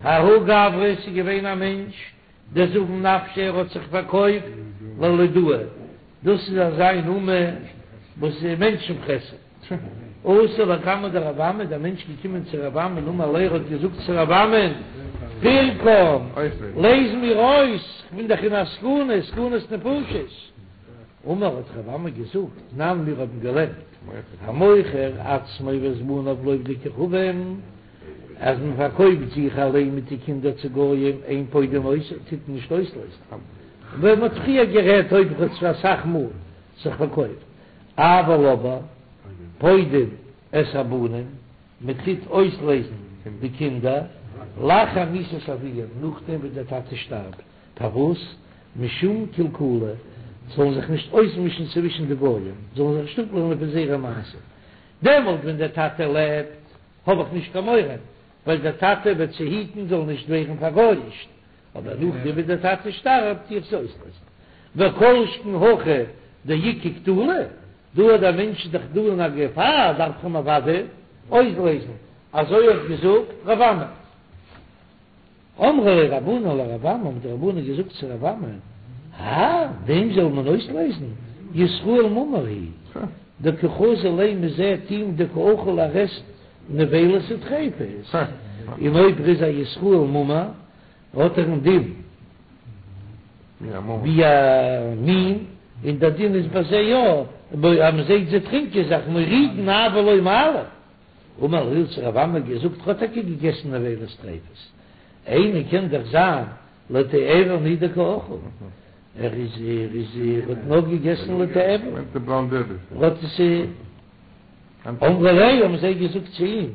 ההוא גברא ס'איז געווען א מענטש דזבין נפשיה ער האט זיך פארקויפט ללודאי, דאס איז אזא אומה וואס איז מענטשן פרעסער. אתא לקמיה דרב אמי, דער מענטש געקומען צו רב אמי אמר ליה ער האט געזאגט צו רב אמי, פירקן, לייז מיר אויס, כ'בין דאך אין א סכנה, סכנת נפשות. אמר האט רב אמי געזאגט, תנן מיר האבן געלערנט, המוכר עצמו ואת בניו לעובדי כוכבים, אז מען פארקויפט זיך אליין מיט די קינדער צו גויים, אין פודין אותו, טוט מען נישט אויסלייזן. ווי מען האט פריער גערעדט אויב ער האט אסאך מאל זיך פארקויפט, אבל אבער פודין את הבנים, מען טוט אויסלייזן די קינדער, לאחר מיתת אביהם, נאכדעם וואס דער טאטע שטארבט, פארוואס? משום קלקולא, זאלן זיך נישט אויסמישן צווישן די גויים, זאלן זיך נישט אפלערנען פון זייערע מעשים, דעמאלט ווען דער טאטע לעבט האב איך נישט קיין מורא, ווייל דער טאטע וועט זיי היטן זאלן נישט ווערן פארגויאישט, אבער נאכדעם ווי דער טאטע שטארבט טו איך זיי אויסלייזן. וכל שכן הכא דאיכא קטלא, דא אז דער מענטש איז דאך דא אין א געפאר דארף איך אים אוודאי אויסלייזן, אזוי האט געזאגט רב אמי. אמרו ליה רבנן לרב אמי, האבן די רבנן געזאגט צו רב אמי, האי, דעם זאל מען אויסלייזן, ישראל מומר הוא, דקא חזי ליה מ'זעט אים דקא אכיל ער עסט נבילות וטריפות, און אויב ער איז א ישראל מומר האט ער א דין ווי א מין, און דער דין איז ביי זיי יא, אז מען זעט זיי טרינקען זיך מורידין אבל לא מעלין. אמר להו האט רב אמי געזאגט ער האט טאקע געגעסן נבילות טריפות, אימא קען דאך זיין לתיאבון הוא דקא אכיל, ער איז ער איז ער האט נאר געגעסן לתיאבון, ער האט עס אמרו ליה האבן זיי געזאגט צו אים,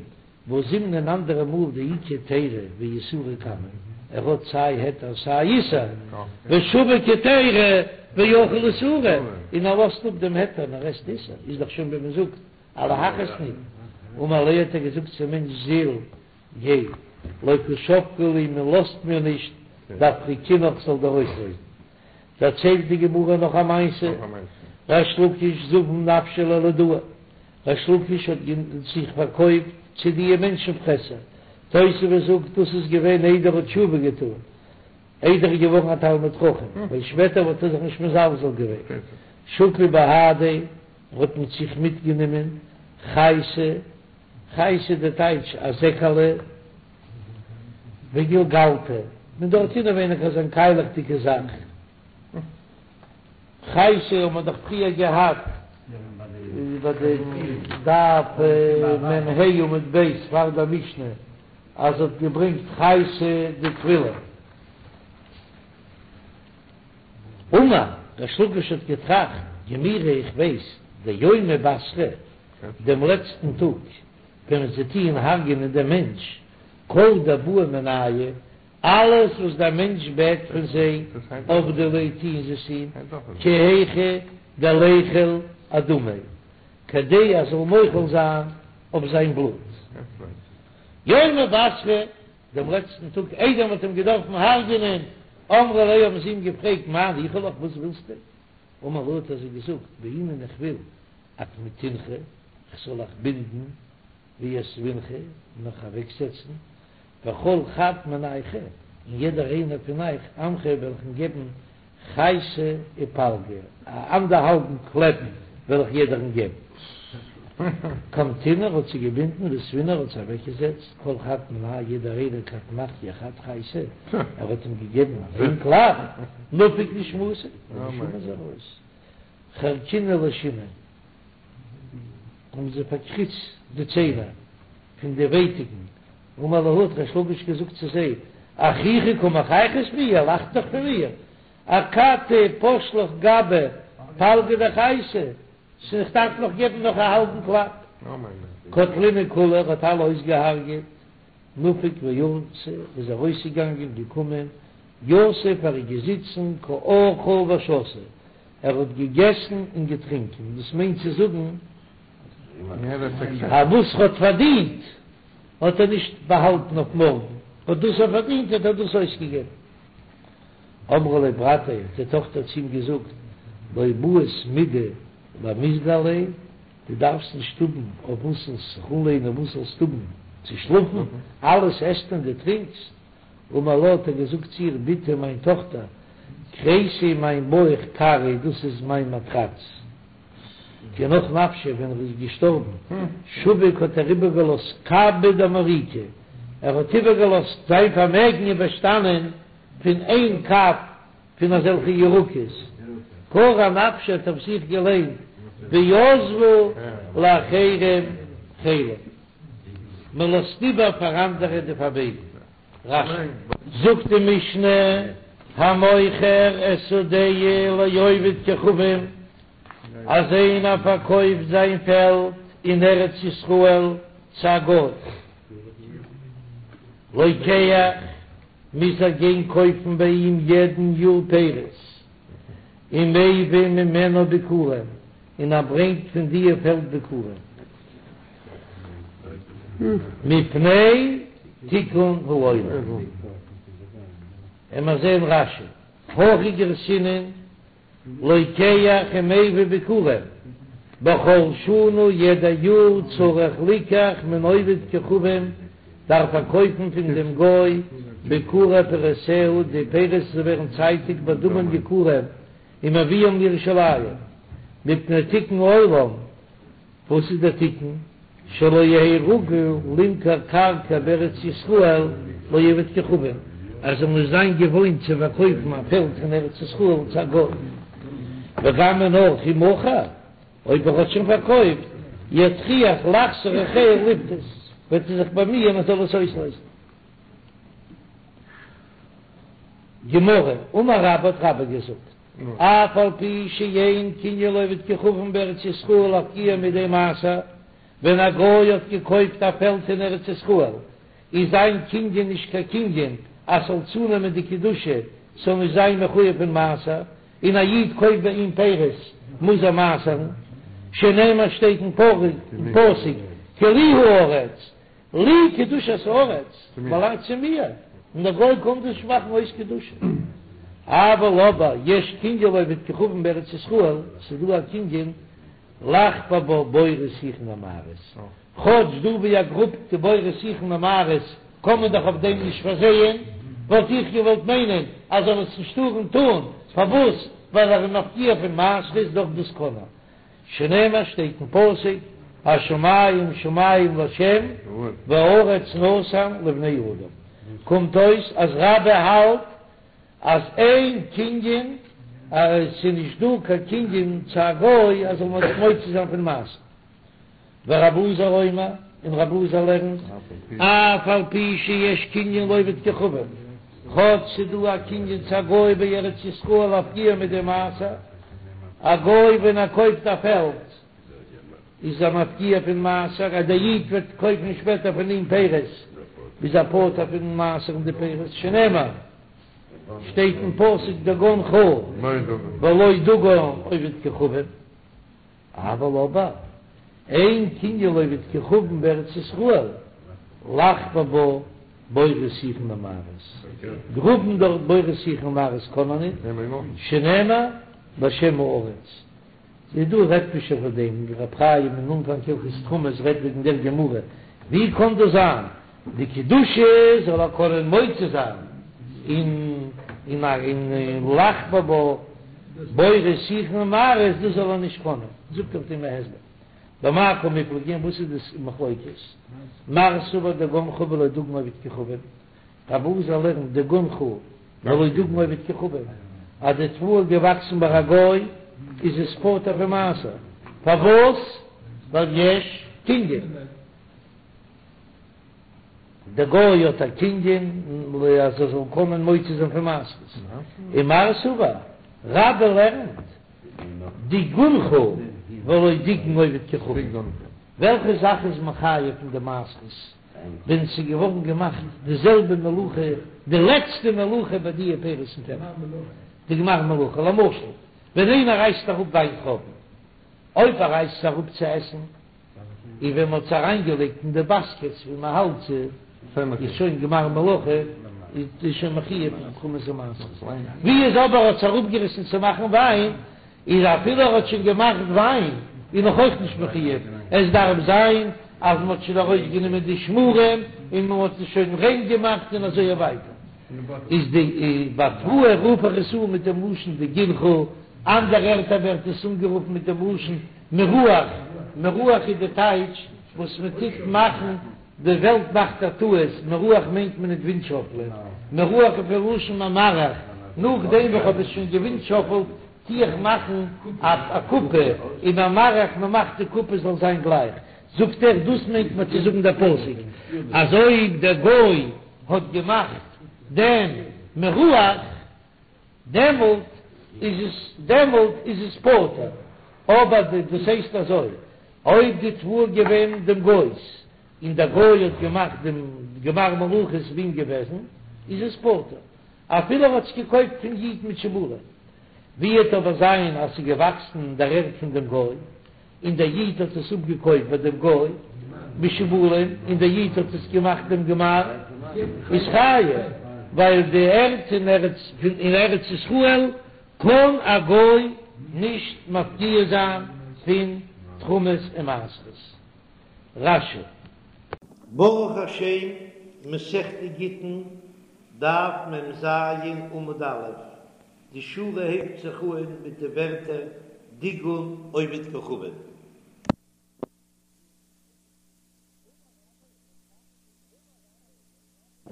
והא זימנין אן אנדערע מאל דאיכא היתירא ואיסורא קמיה, ער האט סיי היתר סיי איסור, ושביק היתירא ואכיל איסורא, און ער לאזט אפ דעם היתר און ער עסט איסור, איז דאך שוין ווי מען זאגט א להכעיס ניט. אמר ליה האט ער געזאגט צום מענטש זיל גיי לא קא שבקי לי מען לאזט מיר נישט דאפריקינך זאל דיר אויסלייזן. דערציילט די גמרא נאך א מעשה, ריש לקיש זבין נפשיה ללודאי, ריש לקיש האט זיך פארקויפט צו דיע מענטשן פרעסער, תוספות זאגט דאס איז געווען איידער ער האט תשובה געטאן, איידער ער איז געווארן א תלמיד חכם, ווייל שפעטער וואלט ער זיך נישט מזלזל געווען, שקל בהדיה האט מיט זיך מיטגענומען חייתא, חייתא די טייטש א זעקעלע, וגולגלתא, מיט דארט אינעווייניג אזא קיילעכדיגע זאך, חייתא האט מען דאך פריער געהאט ביי די דף מ"ה עמוד ב' פאר די משנה אז האט געברענגט חייתא דטבילה. אמר, ריש לקיש האט געטראכט, גמירי איך ווייס, דיומא בתרא, דעם לעצטן טאג, ווען זיי טוען הרג'ענען דעם מענטש, כל דבעי מינייהו, אלעס וואס דער מענטש בעט פון זיי, עבדי ליה טוען זיי עס אים, כי היכי דליחול אדמיה, כדי ער זאל מוחל זיין אויף זיין בלוט. יומא בתרא, דעם לעצטן טאג איידער מ'האט אים געדארפן הרג'ענען, אמרו ליה האבן זיי אים געפרעגט מאי ניחא לך וואס ווילסטו? אמר להו האט ער זיי געזאגט בעינא איך וויל אקמטינכו כ'זאל אייך בינדן ואותבינכו און אייך אוועקזעצן וכל חד מינייכו און יעדער איינער פון אייך אנחיה וועל איך אים געבן חייתא ופלגא, א אנדערהאלבן קלעפ וועל איך יעדערן געבן. קמטינהו האט זיי געבינדן ואותבינהו האט זיי אוועקגעזעצט, כל חד מינייהו יעדער איינער כד מחייה חד חייתא, ער האט אים געגעבן איין קלאפ, נפק נשמתיה, די נשמה איז ארויס. חרקינהו לשיני, האבן זיי פארקריצט די ציינער פון די ווייטיקן, אמר להו האט ריש לקיש געזאגט צו זיי, אחיכו קא מחייכת בי, איר לאכט דאך פון מיר, אכתי פש לך גבי פלגא דחייתא, ס'איז איך דארף נאך געבן נאך א האלבן קלאפ. קטלינהו כולהו, ער האט אלע אויסגעהארגעט, נפק ואתי, איז ארויסגעגאנגען, געקומען, יתיב ער איז געזיצן קא אכיל ושתי, ער האט געגעסן און געטרינקען, דאס מיינט צו זאגן אז וואס ער האט פארדינט האט ער נישט באהאלטן אויף מארגן, האט דאס ער פארדינט האט ער דאס אויסגעגעבן. אמרה ליה ברתיה, האט די טאכטער צו אים געזאגט, לא בעית מידי למיסגי עליה, דו דארפסט נישט האבן אויף וואס זאלסט זיך אנלענען, וואס זאלסט האבן צו שלאפן, אלעס עסט און דו טרינקסט. אמר לה האט ער געזאגט צו איר, בתי מיין טאכטער, כריסי מיין בויך כרעי דאס איז מיין מאטראץ. כי נח נפשיה ווען ער איז געשטארבן, שביק האט ער איבערגעלאזט קבא דמריקא, ער האט איבערגעלאזט זיין פארמעגן איז באשטאנען פון איין קב פון אזעלכע ירקות, קרי אנפשיה האט אויף זיך געליינט ועזבו לאחרים חילם, מען לאזט איבער פאר אנדערע די פארמעגן. רש"י. זאגט די משנה, המוכר את שדהו לעובד כוכבים, אז איינער פארקויפט זיין פעלד אין ארץ ישראל צו א גוי, לוקח, מוז ער גיין קויפן ביי אים יעדן יאר פירות, ומביא ממנה ביכורים, און ער ברענגט פון דיע פעלד ביכורים. מפני תיקון העולם. עמער זעהן רש"י, הכי גרסינן, לוקח ומביא ביכורים, בכל שנה יעדע יאר צריך ליקח מן עובד כוכבים דארף ער קויפן פון דעם גוי ביכורי פירותיה די פירות וואס ווערן צייטיג בדמים יקרים ומביאם לירושלים מפני תיקון עולם וואס איז דער תיקון? שלא יהא רגיל למכור קרקע בארץ ישראל לעובד כוכבים, ער זאל נישט זיין געוואוינט צו פארקויפן א פעלד פון ארץ ישראל צו א גוי, וגם און אויך אם מכר, אויב ער האט שוין פארקויפט, יטריח לחזור אחריה לפדות, וועט ער זיך באמיען ער זאל עס אויסלייזן. גמרא, אמר רבה האט רבה געזאגט, אף על פי שאין קנין לעובד כוכבים בארץ ישראל להפקיע מידי מעשר, ווען א גוי האט געקויפט א פעלד אין ארץ ישראל, איז זיין קנין נישט קיין קנין אז ס'זאל צונעמען די קדושה, ס'זאל נישט זיין מחויב אין מעשר, און א איד קויפט ביי אים פירות מוז ער מעשר'ן, שנאמר שטייט אין פסוק כי לי הארץ, לי קדושת הארץ, באלאנגט צו מיר, און דער גוי קען דאס נישט מאכן אויס קדושה. אבל אבער יש קנין לעובד כוכבים בארץ ישראל, ס'איז דא א קנין לחפור בה בורות שיחין ומערות, כאטש דא ווי ער גראבט די בורות שיחין ומערות קען מען דאך אויף דעם נישט פארזייען, וואלט איך געוואלט מיינען אז זאל עס נישט טארן טון, פארוואס? ווייל ער איז מפקיע פון מעשרות דאך דאס קען ער. שנאמר שטייט אין פסוק השמים שמים לה' והארץ נתן לבני אדם, קומט אויס אז רבה האלט אז אין קנין אז עס איז נישט דא קיין קנין צו א גוי אז זאל מען זיך מוציא זיין פון מעשר. ורבי אלעזר אומר, און רבי אלעזר לערנט, אף על פי שיש קנין לעובד כוכבים, כאטש ס'איז דא א קנין צו א גוי בארץ ישראל להפקיע מידי מעשר, א גוי ווען ער קויפט א פעלד איז ער מפקיע פון מעשר, אז דער איד וועט קויפן שפעטער פון אים פירות איז ער פטור פון מעשר'ן די פירות, שנאמר שטייט אין פסוק דגנך ולא דגן עובד כוכבים. אבל אבער אין קנין לעובד כוכבים בארץ ישראל לחפור בה בורות שיחין ומערות, גראבן דארט בורות שיחין ומערות קען מען ניט, שנאמר להשם הארץ. איז דא רעדט מען שוין פון דעם, רב חיים אין אנפאנג הלכות תרומות רעדט וועגן דער גמרא, ווי קען דאס זיין די קדושה זאל ער קענען מוציא זיין און און לחפור בה בורות שיחין ומערות דאס זאל ער נישט קענען, זאגט אויף דעם א הסבר במאי קמיפלגי וואס איז דאס מחלוקת מר סבר דגנך ולא דגן עובד כוכבים רבי אלעזר לערנט דגנך ולא דגן עובד כוכבים אז די תבואה איז געוואקסן ביי א גוי איז עס פטור פון מעשר פארוואס ווייל יש קנין. דער גוי האט א קנין אז ער זאל קענען מוציא זיין פון מעשרות, און מר סבר רבה לערנט דיגונך ולא דיגן עובד כוכבים, וועלכע זאך איז מחייב פון די מעשרות ווען ס'איז געווארן געמאכט די זעלבע מלאכה די לעצטע מלאכה ביי די פירות אין פעלד, די גמר מלאכה, למשל ווען איינער רייסט אראפ וויינטרויבן, אויב ער רייסט עס אראפ צו עסן, און ווען מ'האט עס אריינגעלייגט אין די באסקעטס ווי מ'האלט זיי, איז שוין גמר מלאכה, איז שוין מחויב אין תרומות ומעשרות. ווי איז אבער האט עס אראפגעריסן צו מאכן וויין, איז אפילו ער האט שוין געמאכט וויין, איז נאך אויך נישט מחויב, עס דארף זיין אז מ'האט שוין ארויסגענומען די שמרים און מ'האט עס שוין ריין געמאכט און אזוי ווייטער. איז די ביי תבואה רוף איך עס אן מיט דעם לשון דגנך, אנדערע ערטער ווערט עס אנגערופן מיט דעם לשון מירוח, מירוח איז די טייטש וואס מען טוט מאכן, די וועלט מאכט א טעות, מירוח מיינט מען ניט ווינטשאפלען, מירוח איז פון לשון ממרח, נאכדעם וואס כ'האב עס שוין געווינטשאפלט טו איך מאכן א קופה, און ממרח מען מאכט די קופה זאל זיין גלייך, זאגט ער דאס מיינט מען צו זאגן דער פסוק אז אויב דער גוי האט געמאכט דעם מירוח דעמאלט איז עס דעמאלט איז עס פטור, אבער די דאס הייסט אזוי אויב די תבואה געווען דעם גוי'ס און דער גוי האט געמאכט דעם גמר מלאכה איז ביי אים געוועזן איז עס פטור אפילו ער האט עס געקויפט פון איד מיט שיבולים, ווי וועט אבער זיין אז ס'איז געוואקסן אין דער ערד פון דעם גוי און דער איד האט עס אפגעקויפט ביי דעם גוי בשיבולים, און דער איד האט עס געמאכט דעם גמר, איז חייב, ווייל די ערד אין ארץ אין ארץ ישראל קען א גוי נישט מפקיע זיין פון תרומות און מעשרות. רש"י. ברוך השם, מסכת גיטין, דף מ"ז עמוד א', די שורה הייבט זיך אהן מיט די ווערטער דיגון עובד כוכבים.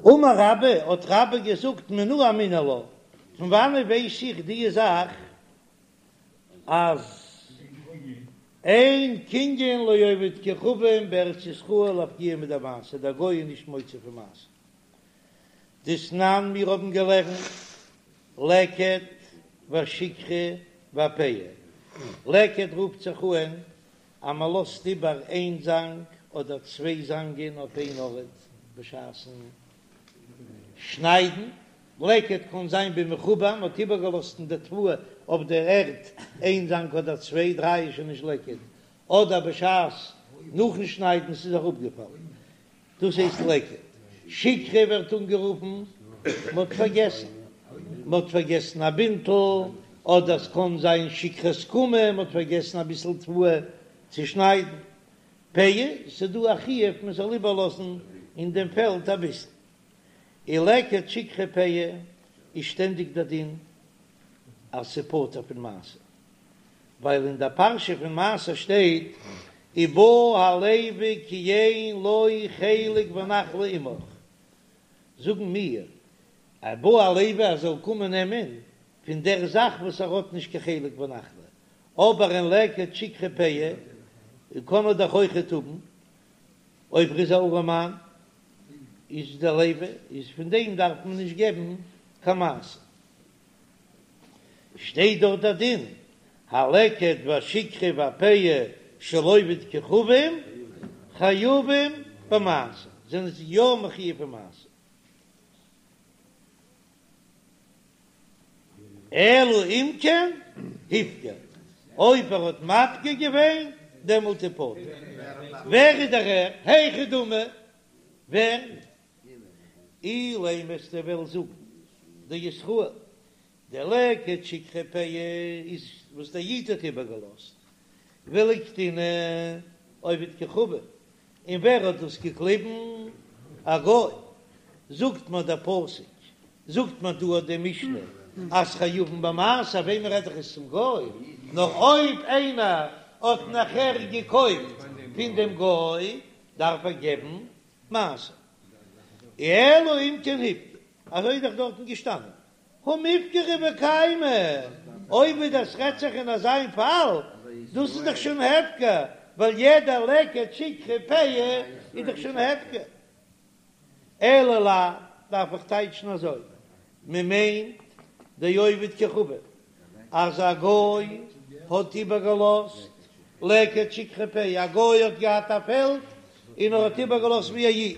אמר רבה, האט רבה געזאגט מנא אמינא לה, פון וואנעט ווייס איך די זאך אז אין קנין לעובד כוכבים בארץ ישראל להפקיע מידי מעשר, דער גוי איז נישט מוציא פון מעשר. דתנן מיר האבן געלערנט לקט והשכחה והפאה, לקט רופט זיך אהן אז מען לאזט איבער איין זאנג אדער צוויי זאנגען אויף איין ארט בשעת'ן שניידן, לקט קען זיין במחובר, מען האט איבערגעלאזט אין די תבואה אויף דער ערד איין זאנג אדער צוויי, דריי איז שוין נישט לקט, אדער בשעת נאכן שניידן ס'איז אראפגעפאלן. דאס הייסט לקט. שכחה ווערט אנגערופן, מ'האט פארגעסן. מ'האט פארגעסן א בינטל, אדער ס'קען זיין שכחת קמה, מ'האט פארגעסן אביסל תבואה צו שניידן. פאה, ס'דא א חיוב מ'זאל איבערלאזן אין דעם פעלד אביסל. און לקט שכחה פאה איז שטענדיג דער דין אז ס'פטור פון מעשר. ווייל אין דער פרשה פון מעשר שטייט ובא הלוי כי אין לו חלק ונחלה עמך, זאגן מיר ובא הלוי ער זאל קומען נעמען פון דער זאך וואס ער האט נישט קיין חלק ונחלה, אבער אין לקט שכחה פאה קען ער דאך אויכעט האבן, אויב ער איז א ארעמאן איז דער לוי איז פון דעם דארף מען נישט געבן קיין מעשר. שטייט דארט דער דין, הלקט והשכחה והפאה של עובד כוכבים חייבים במעשר, זענען זיי יא מחויב אין מעשר. אלא אם כן הפקיר, אויב ער האט מפקיר געווען דעמאלט איז פטור. ווער איז דער ער? היכי דמי, ווער? אילימא וועסטו וועלן זאגן דישראל די לקט שכחה פאה איז וואס דער איד האט איבערגעלאזט ולקטינהו עובד כוכבים, און ווער האט דאס געקליבן? א גוי, זאגט מיר דער פסוק, זאגט מיר דא די משנה אז חייבין במעשר, וועמען רעד איך עס צום גוי? נאר אויב איינער האט נאכער געקויפט פון דעם גוי דארף ער געבן מעשר. אלא אם כן הפקיר, אזוי איז דאך דארטן געשטאנען, הא מיפקרא וקיימא, אויב איז דאס רעדט זיך אין אזיין פאל, דאס איז דאך שוין הפקר, ווייל יעדע לקט שכחה פאה איז דאך שוין הפקר. אלא לאו, דארף איך טייטשן אזוי, מען מיינט דעובד כוכבים, אז א גוי האט איבערגעלאזט לקט שכחה פאה, א גוי האט געהאט א פעלד און ער האט איבערגעלאזט ווי א איד,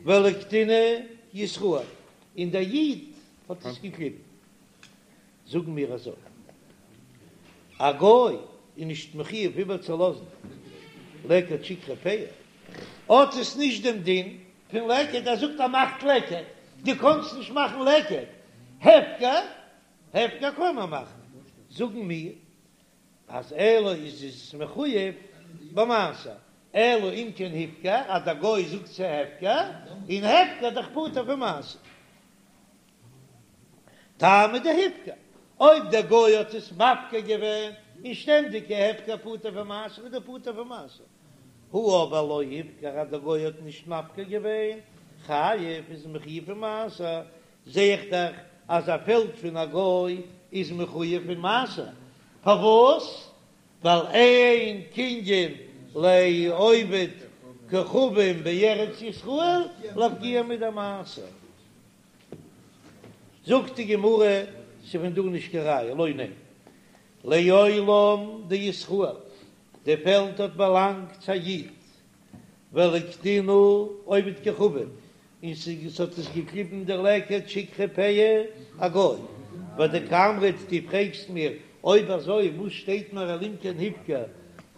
ולקטינהו ישראל, און דער איד האט עס געקליבן. זאגן מיר אזוי, א גוי איז נישט מחויב איבערצולאזן לקט שכחה פאה, האט עס נישט דעם דין פון לקט, ער זאגט ער מאכט לקט, דו קאנסט נישט מאכן לקט, הפקר, הפקר קען מען מאכן, זאגן מיר אז אלא איז עס מחויב במעשר, אלא אם כן הפקיר, אז דער גוי זאגט ס'איז הפקר, און הפקר דאך פטור פון מעשר. טעמא דהפקיר, אויב דער גוי האט עס מפקיר געווען און שטענדיג הפקר פטור פון מעשר איז דער פטור פון מעשר, הא אבער לא הפקיר אז דער גוי האט נישט מפקיר געווען, חייב איז מחויב פון מעשר, זע איך דאך אז א פעלד פון א גוי איז מחויב פון מעשר, פארוואס? ווייל אין קנין לעובד כוכבים בארץ ישראל להפקיע מדמעשר. זאגט די גמרא, ס'איז פון דא נישט קיין ראיה, לא, ניין, לעולם דישראל, די פעלד האט באלאנגט צו א איד, ולקטינהו עובד כוכבים, און ס'האט עס געקליבן דער לקט שכחה פאה א גוי, ודקאמרת דו פרעגסט מיר אויב אזוי וואס שטייט מיר אלא אם כן הפקיר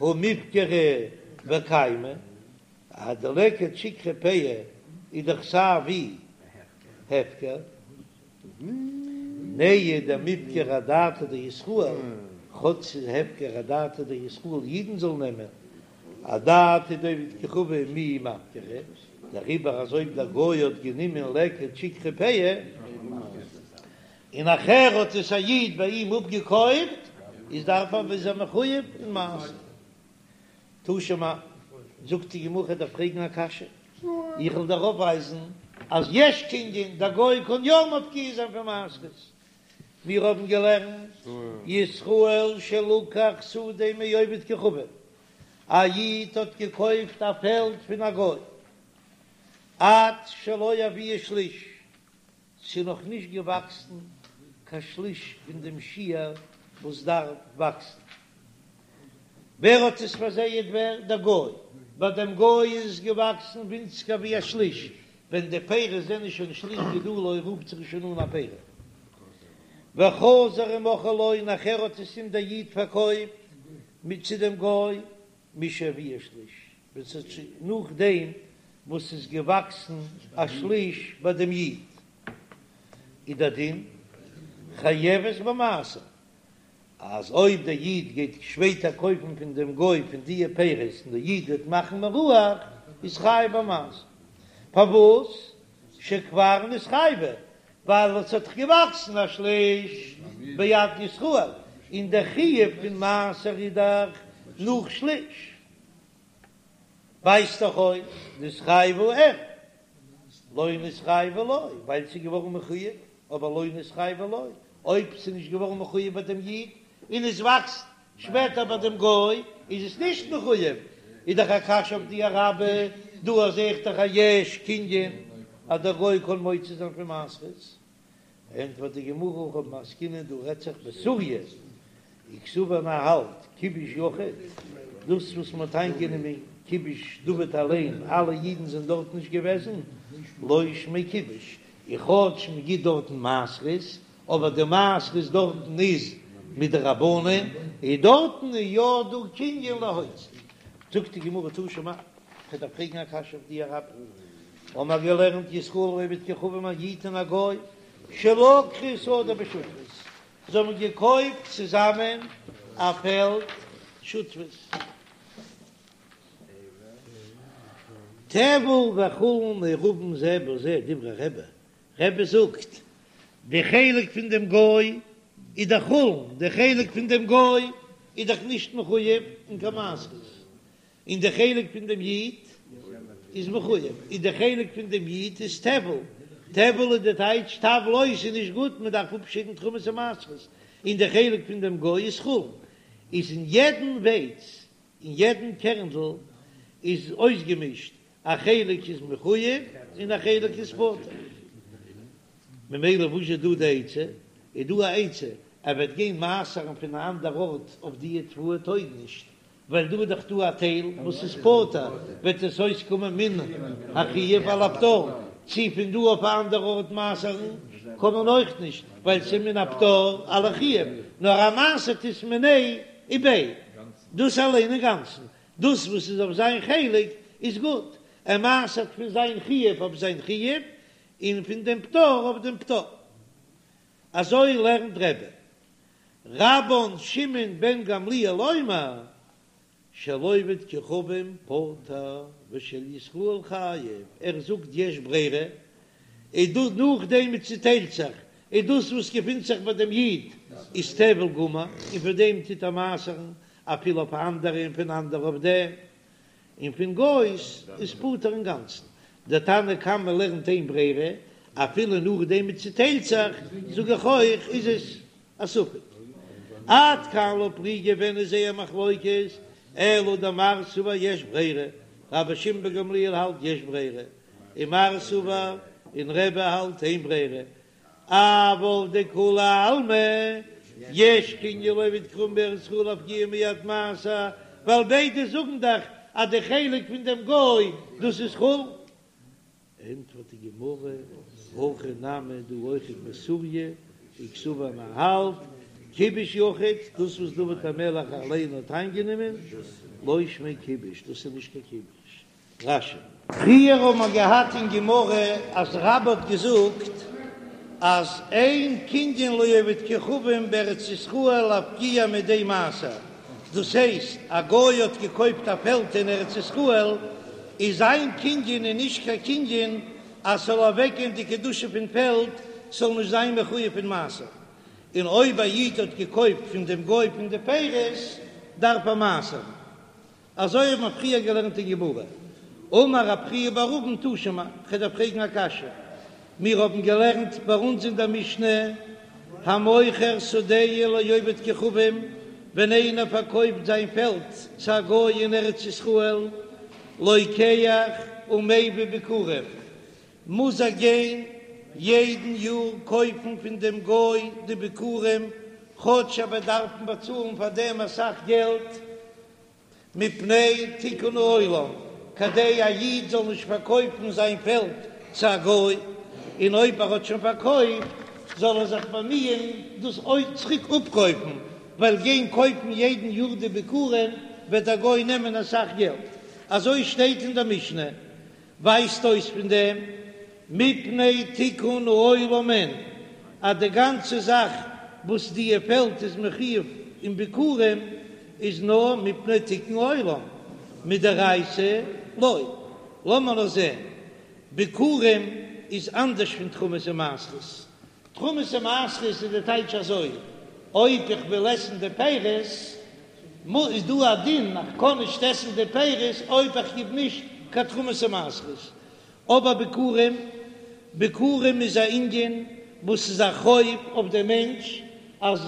הא מיפקרא וקיימא, אז די לקט שכחה פאה איז דאך סיי ווי הפקר, נהי דמיפקר אדעתא דישראל, כאטש ס'איז הפקר אדעתא דישראל אידן זאלן נעמען, אדעתא דעובד כוכבים מי מפקרא, דעריבער אז אויב דער גוי האט גענומען לקט שכחה פאה, און נאכער האט עס א איד ביי אים אפגעקויפט, איז דארף ער איז ער מחויב אין מעשר. תא שמע, זאגט די גמרא כ'דארף פרעגן א קשיא, איך וועל דיר אויפווייזן אז יש קנין, דער גוי קען יא מפקיע זיין פון מעשרות, מיר האבן געלערנט ישראל שלקח שדה מעובד כוכבים, א איד האט געקויפט א פעלד פון א גוי, עד שלא הביאה שליש, ס'איז נאך נישט געוואקסן קיין שליש פון דעם שיעור וואס דארף וואקסן. ווער האט עס פארזייעט ווער? דער גוי. ביי דעם גוי איז עס געוואקסן ווינציגער ווי א שליש, ווען די פירות זענען שוין שליש גידולו רופט זיך עס שוין אן א פרי. וחזר ומכרה לו, נאכער האט עס אים דער איד פארקויפט מיט צו דעם גוי, משהביאה שליש, ווען ס'האט שוין נאכדעם וואס ס'איז געוואקסן א שליש ביי דעם איד, איז דער דין חייבת במעשר, אז אויב דער איד גייט שפעטער קויפן פון דעם גוי פון דיע פירות און דער איד וועט מאכן מירוח, איז חייב במעשר. פארוואס? שכבר נתחייבה, ווייל עס האט דאך געוואקסן א שליש ביד ישראל, און דער חיוב פון מעשר איז דאך נאך שליש. ווייזט דאך אויס נתחייבה אין, לא נתחייבה לא, ווייל ס'איז געווארן מחויב, אבער לא נתחייבה לא, אויב ס'איז נישט געווארן מחויב ביי דעם איד און עס וואקסט שפעטער ביי דעם גוי איז עס נישט מחויב, איז דאך א קשיא אויף דיר רבה, דא זעה איך דאך א יש קנין אז דער גוי קען מוציא זיין פון מעשרות, ענטפערט די גמרא הכא במאי עסקינן דא רעדט זיך בסוריא, וקסבר און ער האלט כיבוש יחיד, דאס וואס מען האט איינגענומען כיבוש דוד אליין, אלע אידן זענען דארט נישט געוועזן, לא שמיה כיבוש, און כאטש מען גיט דארטן מעשרות, אבער די מעשרות דארטן איז מדרבנן, און דארטן איז יא דא קנין להוציא. זאגט די גמרא תא שמע, כ'דארף פרעגן א קשיא אויף דיר רבה, האמער געלערנט ישראל ועובד כוכבים א איד און א גוי שלקחו שדה בשותפות, זיי האבן געקויפט צוזאמען א פעלד שותפות. טבל וחולין מעורבין זה בזה דברי רבי, רבי זאגט, די חלק פון דעם גוי איז דאך חולין, די חלק פון דעם גוי איז דאך נישט מחויב אין קיין מעשרות, און די חלק פון דעם איד איז מחויב, און די חלק פון דעם איד איז טבל, טבל איז די טייטש טבל אויס איז נישט גוט, מען דארף אפשיידן תרומות און מעשרות, און די חלק פון דעם גוי איז חולין, איז אין יעדן ווייץ, אין יעדן קערנדל איז אויסגעמישט א חלק איז מחויב און א חלק איז פטור, ממילא וואס איז דא די עצה? איז דא א עצה ער וועט גיין מעשר'ן פון א אנדער ארט אויף די תבואה טויג נישט, ווייל דא איז דאך דא א טייל וואס איז פטור, וועט עס אויסקומען מן החיוב על הפטור, צו פון דא אויף א אנדער ארט מעשר'ן קען מען אויך נישט, ווייל ס'איז מן הפטור על החיוב, נאר ער מעשר'ט עס מיניה וביה, דאס אליין אינגאנצן, דאס וואס איז אויף זיין חלק איז גוט, ער מעשר'ט פון זיין חיוב אויף זיין חיוב, און פון דעם פטור אויף דעם פטור. אזוי לערנט רבי. רבן שמעון בן גמליאל אומר, של עובד כוכבים פטור ושל ישראל חייב, ער זאגט יש ברירה, איז דא נאכדעם מען צוטיילט זיך, איז דאס וואס געפינט זיך ביי דעם איד איז טבל גמור, און פון דעם טוט ער מעשר'ן אפילו אויף אנדערע און פון אנדערע אויף דעם, און פון גוי'ס איז פטור אינגאנצן. דער תנא קמא לערנט אין ברירה, אפילו נאכדעם מען צוטיילט זיך, זאג איך אויך איז עס א ספק. עד כאן לא פליגי ווען איז זייער מחלוקת, אלא דמר סבר יש ברירה, רבן שמעון בן גמליאל האלט יש ברירה, און מר סבר און רבי האלט אין ברירה, אבל דכולי עלמא יש קנין לעובד כוכבים בארץ ישראל להפקיע מיד מעשר, ווייל ביידע זאגן דאך אז די חלק פון דעם גוי דאס איז חולין. ענטפערט די גמרא, הכא נמי דא אויכעט בסוריא, וקסבר מ'האלט כיבוש יחיד, דאס וואס דוד המלך אליין האט איינגענומען, לא שמיה כיבוש, דאס איז נישט קיין כיבוש. רש"י. פריער האבן מיר געהאט אין גמרא אז רבה האט געזאגט אז אין קנין לעובד כוכבים בארץ ישראל להפקיע מידי מעשר, דאס הייסט א גוי האט געקויפט א פעלד אין ארץ ישראל, איז זיין קנין איז נישט קיין קנין אז ס'זאל אוועקגיין די קדושה פון פעלד, ס'זאל נישט זיין מחויב פון מעשר, און אויב א איד האט געקויפט פון דעם גוי פון די פירות דארף ער מעשר'ן. אזוי האט מען פריער געלערנט אין גמרא. אמר רב חייא בר אבין תא שמע, כ'וועל דיר פרעגן א קשיא, מיר האבן געלערנט ביי אונז אין דער משנה, המוכר שדהו לעובד כוכבים, ווען איינער פארקויפט זיין פעלד צו א גוי אין ארץ ישראל, לוקח ומביא ביכורים, מוז ער גיין יעדן יאר קויפן פון דעם גוי די ביכורים, כאטש ער וועט דארפן באצאלן פאר דעם אסאך געלט, מפני תיקון העולם, כדי א איד זאל נישט פארקויפן זיין פעלד צו א גוי, און אויב ער האט שוין פארקויפט זאל ער זיך באמיען דאס צוריק אפקויפן, ווייל גיין קויפן יעדן יאר די ביכורים וועט דער גוי נעמען אסאך געלט, אזוי שטייט אין דער משנה. ווייזט אויס פון דעם מפני תיקון העולם אין אז די גאנצע זאך וואס די פעלד איז מחויב אין ביכורים איז נאר מפני תיקון העולם, מדאורייתא לא. לאמיר נאר זען, ביכורים איז אנדערש פון תרומות ומעשרות, תרומות ומעשרות איז די טייטש אזוי, אויב איך וויל עסן די פירות, איז דא א דין איך קען נישט עסן די פירות אויב איך גיב נישט קיין תרומות ומעשרות. אבער ביכורים, ביכורים איז א ענין וואס איז א חוב אויף דעם מענטש, אז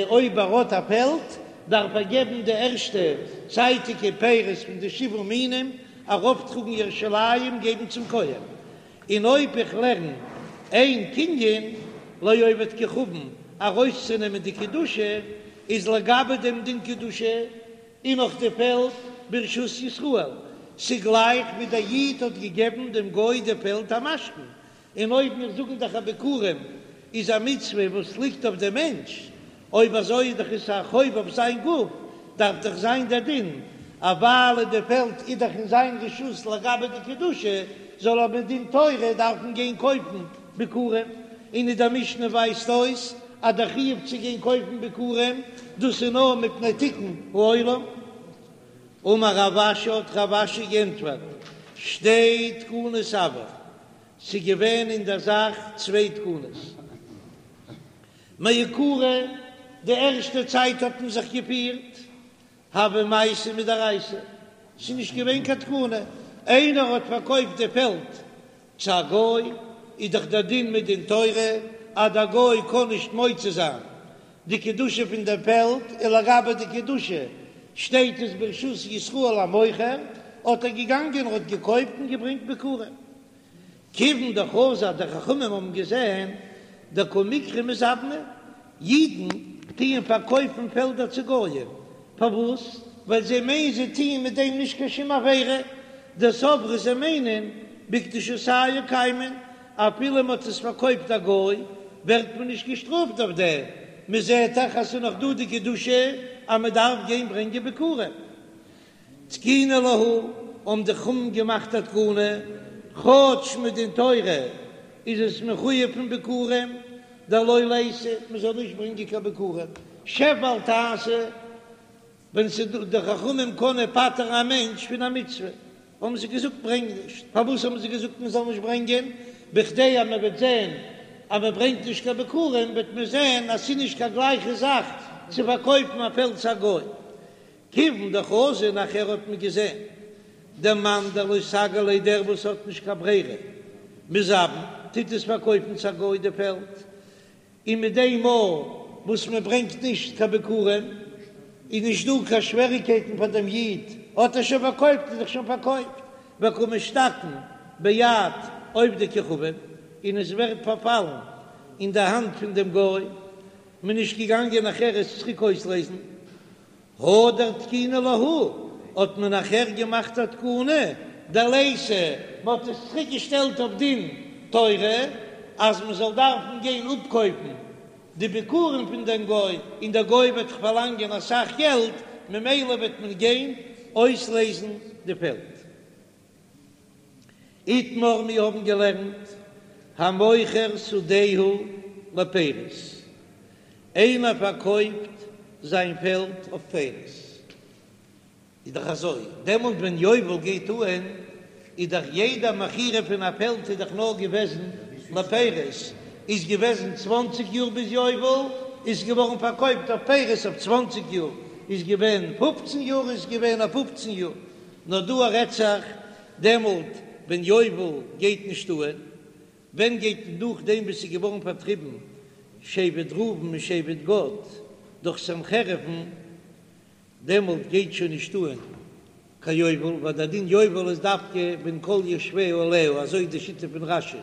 אויב ער האט א פעלד דארף ער געבן די ערשטע צייטיגע פירות פון די שבעה מינים ארויפטראגן ירושלים געבן צום כהן, און אויב איך לערן אין קנין לעובד כוכבים ארויסצונעמען די קדושה, איז לגבי דעם דין קדושה איז נאך די פעלד ברשות ישראל, ס'גלייך ווי דער איד האט געגעבן דעם גוי די פעלד א משכון, און אויב מיר זאגן דאך אז ביכורים איז א מצוה וואס ליגט אויף דעם מענטש, אויב אזוי איז דאך עס א חוב אויף זיין גוף, דארף דאך זיין דער דין אז ווייל די פעלד איז דאך אין זיין רשות לגבי די קדושה, זאל ער מדין תורה דארפן גיין קויפן ביכורים, און אין דער משנה ווייזט אויס אז דער חיוב צו גיין קויפן ביכורים דאס איז נאר מפני תיקון העולם. אמר רב אשי האט רב אשי גענטפערט, שתי תקנות הוו, ס'איז געווען אין דער זאך צוויי תקנות. מעיקרא, די ערשטע צייט האט מען זיך געפירט הוה מעשה מדאורייתא, ס'איז נישט געווען קיין תקנה, איינער האט פארקויפט די פעלד צו א גוי, איז דאך דער דין מדין תורה אז דער גוי קען נישט מוציא זיין די קדושה פון דער פעלד, און לגבי די קדושה שטייט עס ברשות ישראל המוכר, האט ער געגאנגען און האט געקויפט און געברענגט ביכורים. כיוון דחזו די חכמים האבן געזען דקא מיקרי מזבני, אידן טוען פארקויפן פעלדער צו גויים, פארוואס? ווייל זיי מיינען זיי טוען מיט דעם נישט קיין שום עבירה, דסברי זיי מיינען בקדושתייהו קיימן, אפילו מען האט עס פארקויפט א גוי ווערט מען נישט געשטראפט אויף דעם, מען זעט דאך אז ס'איז נאך דא די קדושה אז מען דארף גיין ברענגען ביכורים. תקינו להו, האבן די חכמים געמאכט א תקנה, כאטש מדין תורה איז עס מחויב פון ביכורים, דלא ליתו, מען זאל נישט ברענגען קיין ביכורים, שב ואל תעשה, ווען ס'איז דא די חכמים קענען פטר'ן א מענטש פון א מצוה, האבן זיי געזאגט ברענג נישט, פארוואס האבן זיי געזאגט מען זאל נישט ברענגען, בכדי אז מען וועט זען. אז מען ברענגט נישט קיין ביכורים וועט מען זען אז ס'איז נישט קיין גלייכע זאך צו פארקויפן א פעלד צו א גוי. כיוון דחזו נאכער האט מען געזען דמאן דלא סגי ליה דער וואס האט נישט קיין ברירה מזבין טוט עס פארקויפן צו א גוי די פעלד, און מיט דעם מאל וואס מען ברענגט נישט קיין ביכורים איז נישט דא קיין שוועריקייטן פאר דעם איד, האט ער שוין פארקויפט איז דאך שוין פארקויפט, וקא משתקען ביד עובדי כוכבים, און עס ווערט פארפאלן אין די האנט פון דעם גוי, מען איז נישט געגאנגען נאכער עס צוריק אויסלעזן. הדר תקינו להו, האט מען נאכער געמאכט א תקנה דליתו, מען האט עס צוריק געשטעלט אויף דין תורה אז מען זאל דארפן גיין אפקויפן די ביכורים פון דעם גוי, און דער גוי וועט דאך פארלאנגען אסאך געלט, ממילא וועט מען גיין אויסלעזן די פעלד. איתמר מיר האבן געלערנט המוכר שדהו לפירות, איינער פארקויפט זיין פעלד אויף פירות, איז דאך אזוי, דעמאלט ווען יובל גייט אהן איז דאך יעדע מכירה פון א פעלד איז דאך נאר געוועזן לפירות, איז געוועזן צוואנציג יאר ביז יובל, איז געווארן פארקויפט אויף פירות אויף צוואנציג יאר, איז געווען פופצן יאר איז געווען אויף פופצן יאר, נאר דא רעדט זיך דעמאלט ווען יובל גייט נישט אהן, ווען גייט נאכדעם וואס ס'איז געווארן פארטריבן שבט ראובן און שבט גד דורך סנחריב'ן, דעמאלט גייט שוין נישט אהן קיין יובל, ווייל דער דין יובל איז דווקא ווען כל יושביה עליה, אזוי איז די שיטה פון רש"י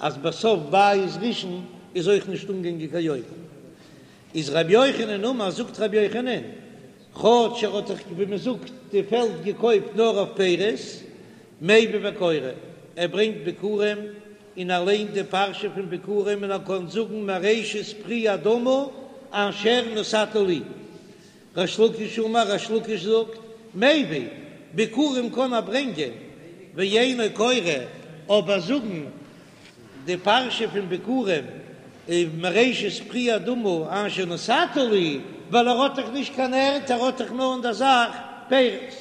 אז בסוף בית ראשון איז אויך נישט אנגעגאנגען קיין יובל. איז רבי יוחנן אמר, זאגט רבי יוחנן, כאטש ער האט דאך ווי מען זאגט די פעלד געקויפט נאר אויף פירות, מביא וקורא, ער ברענגט ביכורים און ער ליינט די פרשה פון ביכורים און ער קען זאגן מראשית פרי האדמה אשר נתת לי. ריש לקיש אמר, ריש לקיש זאגט, מביא, ביכורים קען ער ברענגען, ואינו קורא, אבער זאגן די פרשה פון ביכורים מראשית פרי האדמה אשר נתת לי, ווייל ער האט דאך נישט קיין ערד, ער האט דאך נאר אין דער זאך פירות.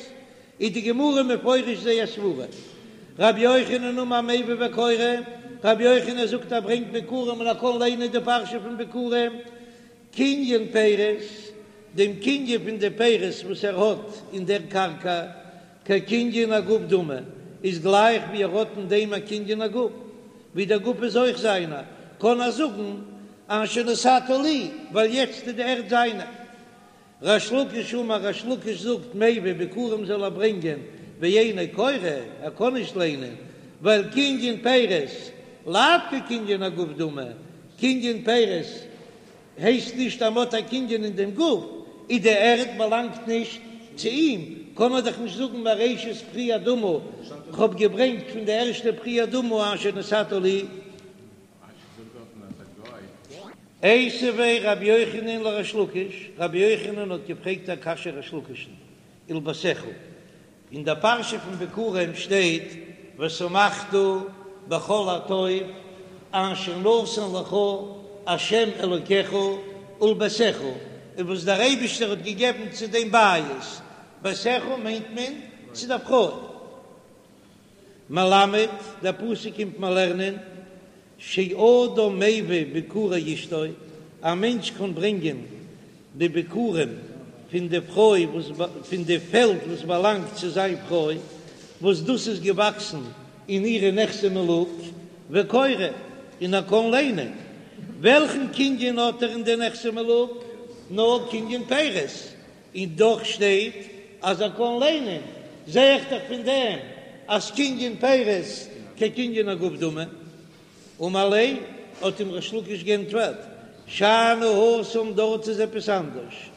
איז די גמרא מפרש זייער סברה. רבי יוחנן אמר מביא וקורא, רבי יוחנן זאגט ער ברענגט ביכורים און ער קען ליינען די פרשה פון ביכורים, קנין פירות, דעם קנין פון די פירות וואס ער האט אין דער קרקע, כקנין הגוף דמי, איז גלייך ווי ער האט אין דעם א קנין הגוף, ווי דער גוף איז אויך זיינער, קען ער זאגן אשר נתת לי, ווייל יעצט איז די ערד זיינע. ריש לקיש אמר, ריש לקיש זאגט, מביא ביכורים זאל ער ברענגען, ואינו קורא, ער קען נישט ליינען, ווייל קנין פירות, לאו כקנין הגוף דמי, קנין פירות הייסט נישט אז מ'האט א קנין אין דעם גוף, איז די ערד באלאנגט נישט צו אים, קען מען דאך נישט זאגן מראשית פרי האדמה, כ'האב געברענגט פון די ערשטע פרי האדמה אשר נתת לי. איתיביה רבי יוחנן לריש לקיש, רבי יוחנן האט געפרעגט א קשיא ריש לקיש'ן, ולביתך, אין דער פרשה פון ביכורים שטייט ושמחת בכל הטוב אשר נתן לך ה' אלוקיך ולביתך, און וואס דער אייבישטער האט געגעבן צו דעם בית, ביתך מיינט מען צו דער פרוי. מלמד, דער פסוק קומט מיר לערנען, שאדם מביא ביכורי אשתו, א מענטש קען ברענגען די ביכורים פון די פרוי וואס פון די פעלד וואס באלאנגט צו זיין פרוי, וואס דאס איז געוואקסן אין אירע נכסי מלוג, וקורא, און ער קען ליינען. וועלכן קנין האט ער אין די נכסי מלוג? נאר קנין פירות, און דאך שטייט אז ער קען ליינען, זע איך דאך פון דעם אז קנין פירות כקנין הגוף דמי. אמר ליה, האט אים ריש לקיש גענטפערט, שאני התם דארט איז עפעס אנדערש,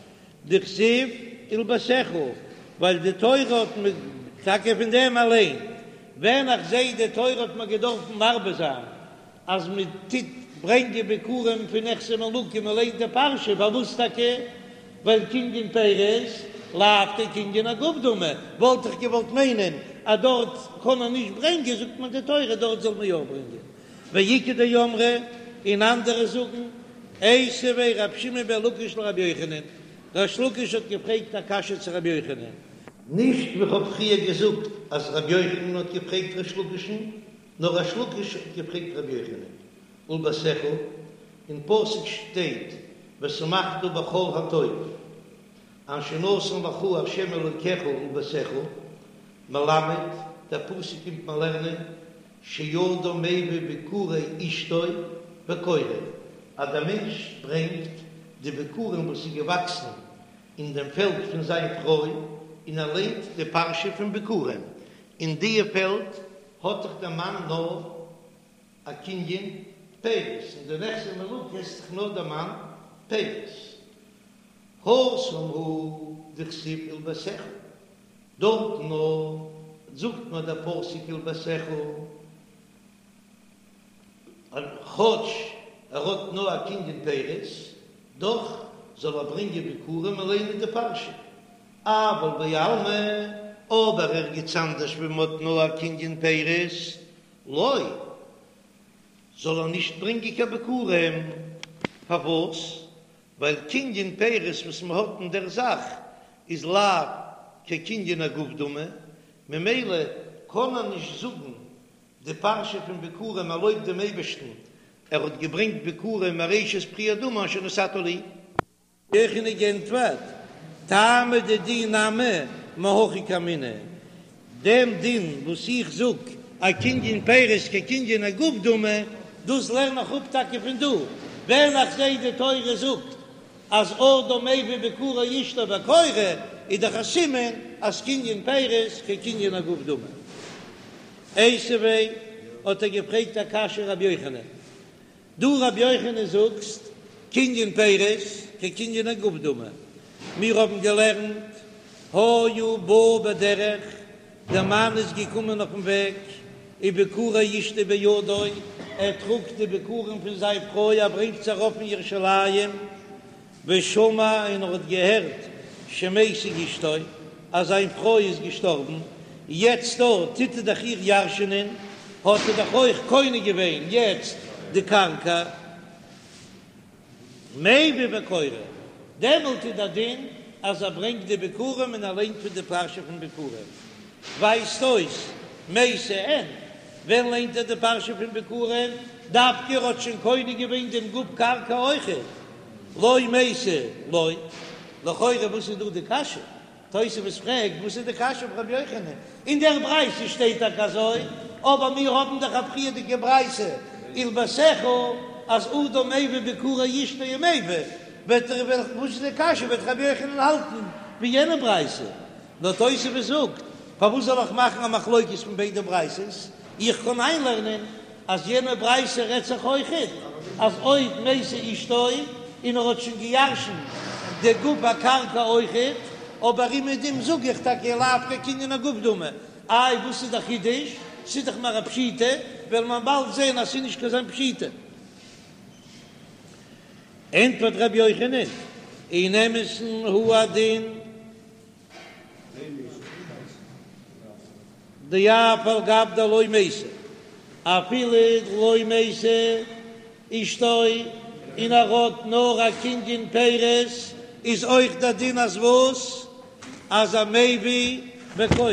דכתיב ולביתך, ווייל די תורה האט מיר, טאקע פון דעם אליין, ווען איך זע די תורה האט מיר געדארפן מרבה זיין אז מען טוט ברענגען ביכורים פון נכסי מלוג און מען ליינט די פרשה, פארוואס טאקע? ווייל קנין פירות לאו כקנין הגוף דמי, וואלט איך געוואלט מיינען אז דארט קען מען נישט ברענגען, זאגט מען די תורה דארט זאל מען יא ברענגען, ואיכא דאמרי, און אנדערע זאגן, איתיביה רב שמעון בן לקיש לרבי יוחנן, ריש לקיש האט געפרעגט א קשיא צו רבי יוחנן. נישט ווי כ'האב פריער געזאגט אז רבי יוחנן האט געפרעגט ריש לקיש'ן, נאר ריש לקיש האט געפרעגט רבי יוחנן. ולביתך, אין פסוק שטייט ושמחת בכל הטוב אשר נתן לך ה' אלוקיך ולביתך, מלמד, דער פסוק קומט מיר לערנען שאדם מביא ביכורי אשתו וקורא, אז דער מענטש ברענגט די ביכורים וואס איז געוואקסן אין דעם פעלד פון זיין פרוי, און ער ליינט די פרשה פון ביכורים, אין דיע פעלד האט דאך דער מאן נאר א קנין פירות, אין די נכסי מלוג עסט דאך נאר דער מאן פירות. התם הוא דכתיב ולביתך, דארטן נאר זאגט מיר דער פסוק ולביתך, כאטש ער האט נאר א קנין פירות, דאך זאל ער ברענגען ביכורים און ליינען די פרשה. אבל בעלמא, אבער ערגעץ אנדערש ווי מען האט נאר א קנין פירות, לא, זאל ער נישט ברענגען קיין ביכורים. פארוואס? ווייל קנין פירות וואס מען האט אין דער זאך איז לאו כקנין הגוף דמי, ממילא קען ער נישט זאגן די פרשה פון ביכורים ער לויבט דעם אייבערשטן ער האט געברענגט ביכורים מראשית פרי האדמה אשר נתת לי. יוחנן געענטפערט, טעמא דידי נמי מהכא קאמינא, דעם דין וואס איך זאג אז קנין פירות כקנין הגוף דמי, דאס לערן איך אפ טאקע פון דא, ווען איך זע די תורה זאגט אז אדם מביא ביכורי אשתו וקורא, איז דאך א סימן אז קנין פירות כקנין הגוף דמי. איתיביה האט ער געפרעגט א קשיא רבי יוחנן, דו רבי יוחנן זאגסט קנין פירות כקנין הגוף דמי, מיר האבן געלערנט היה בא בדרך, דער מאן איז געקומען אויפן וועג, וביכורי אשתו בידו, ער טראגט די ביכורים פון זיין פרוי ער ברענגט זיי ארויף אין ירושלים, ושמע און ער האט געהערט שמתה אשתו אז זיין פרוי איז געשטארבן, יעצט דא טוט ער דאך איר ירש'ענען, האט ער דאך אויך קונה געווען יעצט די קרקע, מביא וקורא, דעמאלט איז דער דין אז ער ברענגט די ביכורים און ער ליינט פון די פרשה פון ביכורים, ווייזט אויס מתה אין, ווען ליינט ער די פרשה פון ביכורים? דווקא ער האט שוין קונה געווען דעם גוף קרקע אויכעט, לא מתה לא, לכאורה וואס איז דא די קשיא? תוספות פרעגט וואס איז די קשיא אויף רבי יוחנן? אין דער ברייתא שטייט טאקע אזוי, אבער מיר האבן דאך א פריערדיגע ברייתא ולביתך אז אדם מביא ביכורי אשתו ומביא, וועט ער וואס איז די קשיא וועט רבי יוחנן האלטן ווי יענע ברייתא? נאר תוספות זאגט, פארוואס זאל איך מאכן א מחלוקת פון ביידע ברייתות? איך קען איינלערנען אז יענע ברייתא רעדט זיך אויכעט אז אויב מתה אשתו און ער האט שוין געירשנט די גוף הקרקע אויכעט, אבער אומעדום זאג איך טאקע לאו כקנין הגוף דמי. איי וואס איז די חידוש? ס'איז דאך מער א פשיטא, וועל מען באלד זען אז ס'איז נישט קיין זיין פשיטא. ענטפערט ר' יוחנן, אין אמת'ן הוא הדין. דאף על גב דלא מתה, אפילו לא מתה אשתו און ער האט נאר א קנין פירות, איז אויך דער דין אז וואס? אז ער מביא וקורא.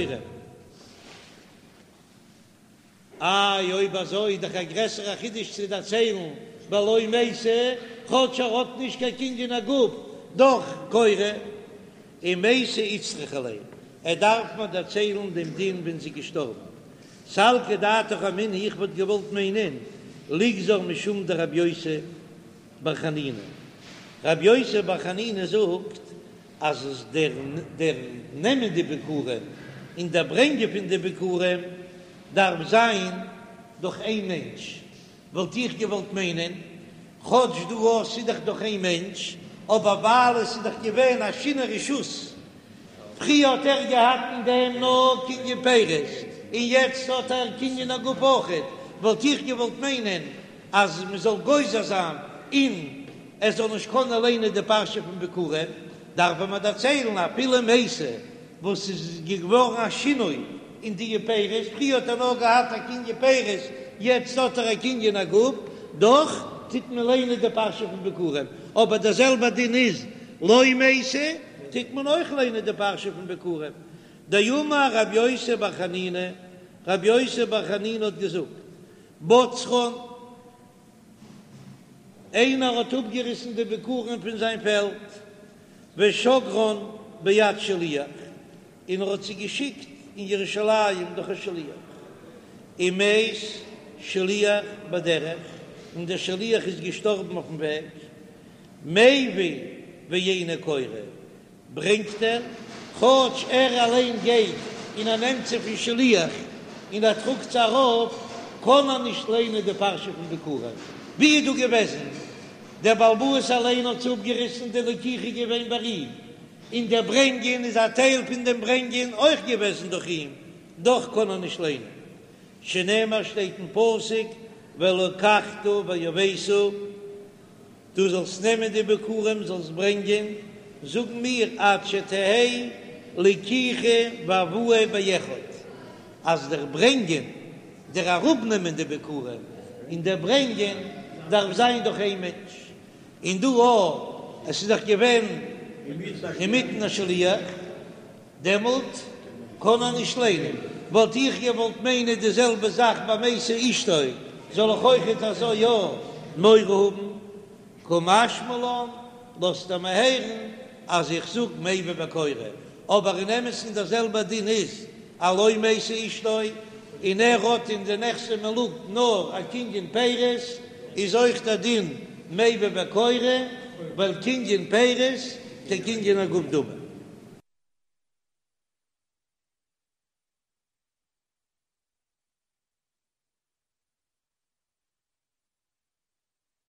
איי אויב אזוי איז דאך א גרעסערע חידוש צו דערציילן בלא מתה, כאטש ער האט נישט קיין קנין הגוף, דאך קורא, ומתה איצטריכא ליה, ער דארף מיר דערציילן דעם דין ווען זי איז געשטארבן. סלקא דעתך אמינא איך וואלט געוואלט מיינען ליגזור משום דרבי יוסי בר חנינא, רבי יוסי בר חנינא זאגט אז עס דער דער נעמען די ביכורים און דער ברענגען פון די ביכורים דארף זיין דורך איין מענטש, וואלט איך געוואלט מיינען, כאטש דא אויך ס'איז דאך דורך איין מענטש, אבער ווייל עס איז דאך געווען א שינוי רשות, פריער האט ער געהאט אין דעם נאר קנין פירות, און יעצט האט ער קנין הגוף אויכעט, וואלט איך געוואלט מיינען אז מען זאל גוזר זיין און ער זאל נישט קענען ליינען די פרשה פון ביכורים, דארף מען דערציילן אפילו מתה וואס איז געווארן א שינוי אין די פירות, פריער האט ער נאר געהאט א קנין פירות, יעצט האט ער א קנין הגוף, דאך טוט מען ליינען די פרשה פון ביכורים, אבער דער זעלבער דין איז לא מתה, טוט מען אויך ליינען די פרשה פון ביכורים. דאמר רבי יוסי בר חנינא, רבי יוסי בר חנינא האט געזאגט, בצרן. איינער האט אפגעריסן די ביכורים פון זיין פעלד, ושגרן ביד שליח, און ער האט זיי געשיקט אין ירושלים דורך א שליח, ומת שליח בדרך, און דער שליח איז געשטארבן אויפן וועג, מביא ואינו קורא, ברענגט ער, כאטש ער אליין גייט און ער נעמט זיי פון שליח און ער טראגט זיי ארויף, קען ער נישט ליינען די פרשה פון ביכורים. ווי איז דא געוועזן? דער בעל הבית אליין האט זיי אפגעריסן, די לקיחה איז געווען ביי אים, און דער ברענגען איז א טייל פון דעם ברענגען אויך געוועזן דורך אים, דאך קען ער נישט ליינען. שנאמר שטייט אין פסוק ולקחת והבאת. דו זאלסט נעמען די ביכורים זאלסט ברענגען, זאגן מיר עד שתהא לקיחה והבאה באחד, אז דער ברענגען, דער אראפנעמען די ביכורים און דער ברענגען דארף זיין דורך איין מענטש, און דא אויך, עס איז דאך געווען אינמיטן א שליח. דעמאלט קען ער נישט ליינען. וואלט איך געוואלט מיינען די זעלבע זאך ביי מתה אשתו, זאל איך אויכעט אזוי יא מורא האבן? קא משמע לן, לאזט ער מיר הערן אז איך זאג מביא וקורא, אבער אין אמת'ן דער זעלבער דין איז אז לא מתה אשתו, און ער האט אין די נכסי מלוג נאר א קנין פירות, איז אויך דער דין מביא וקורא, ווייל קנין פירות כקנין הגוף דמי.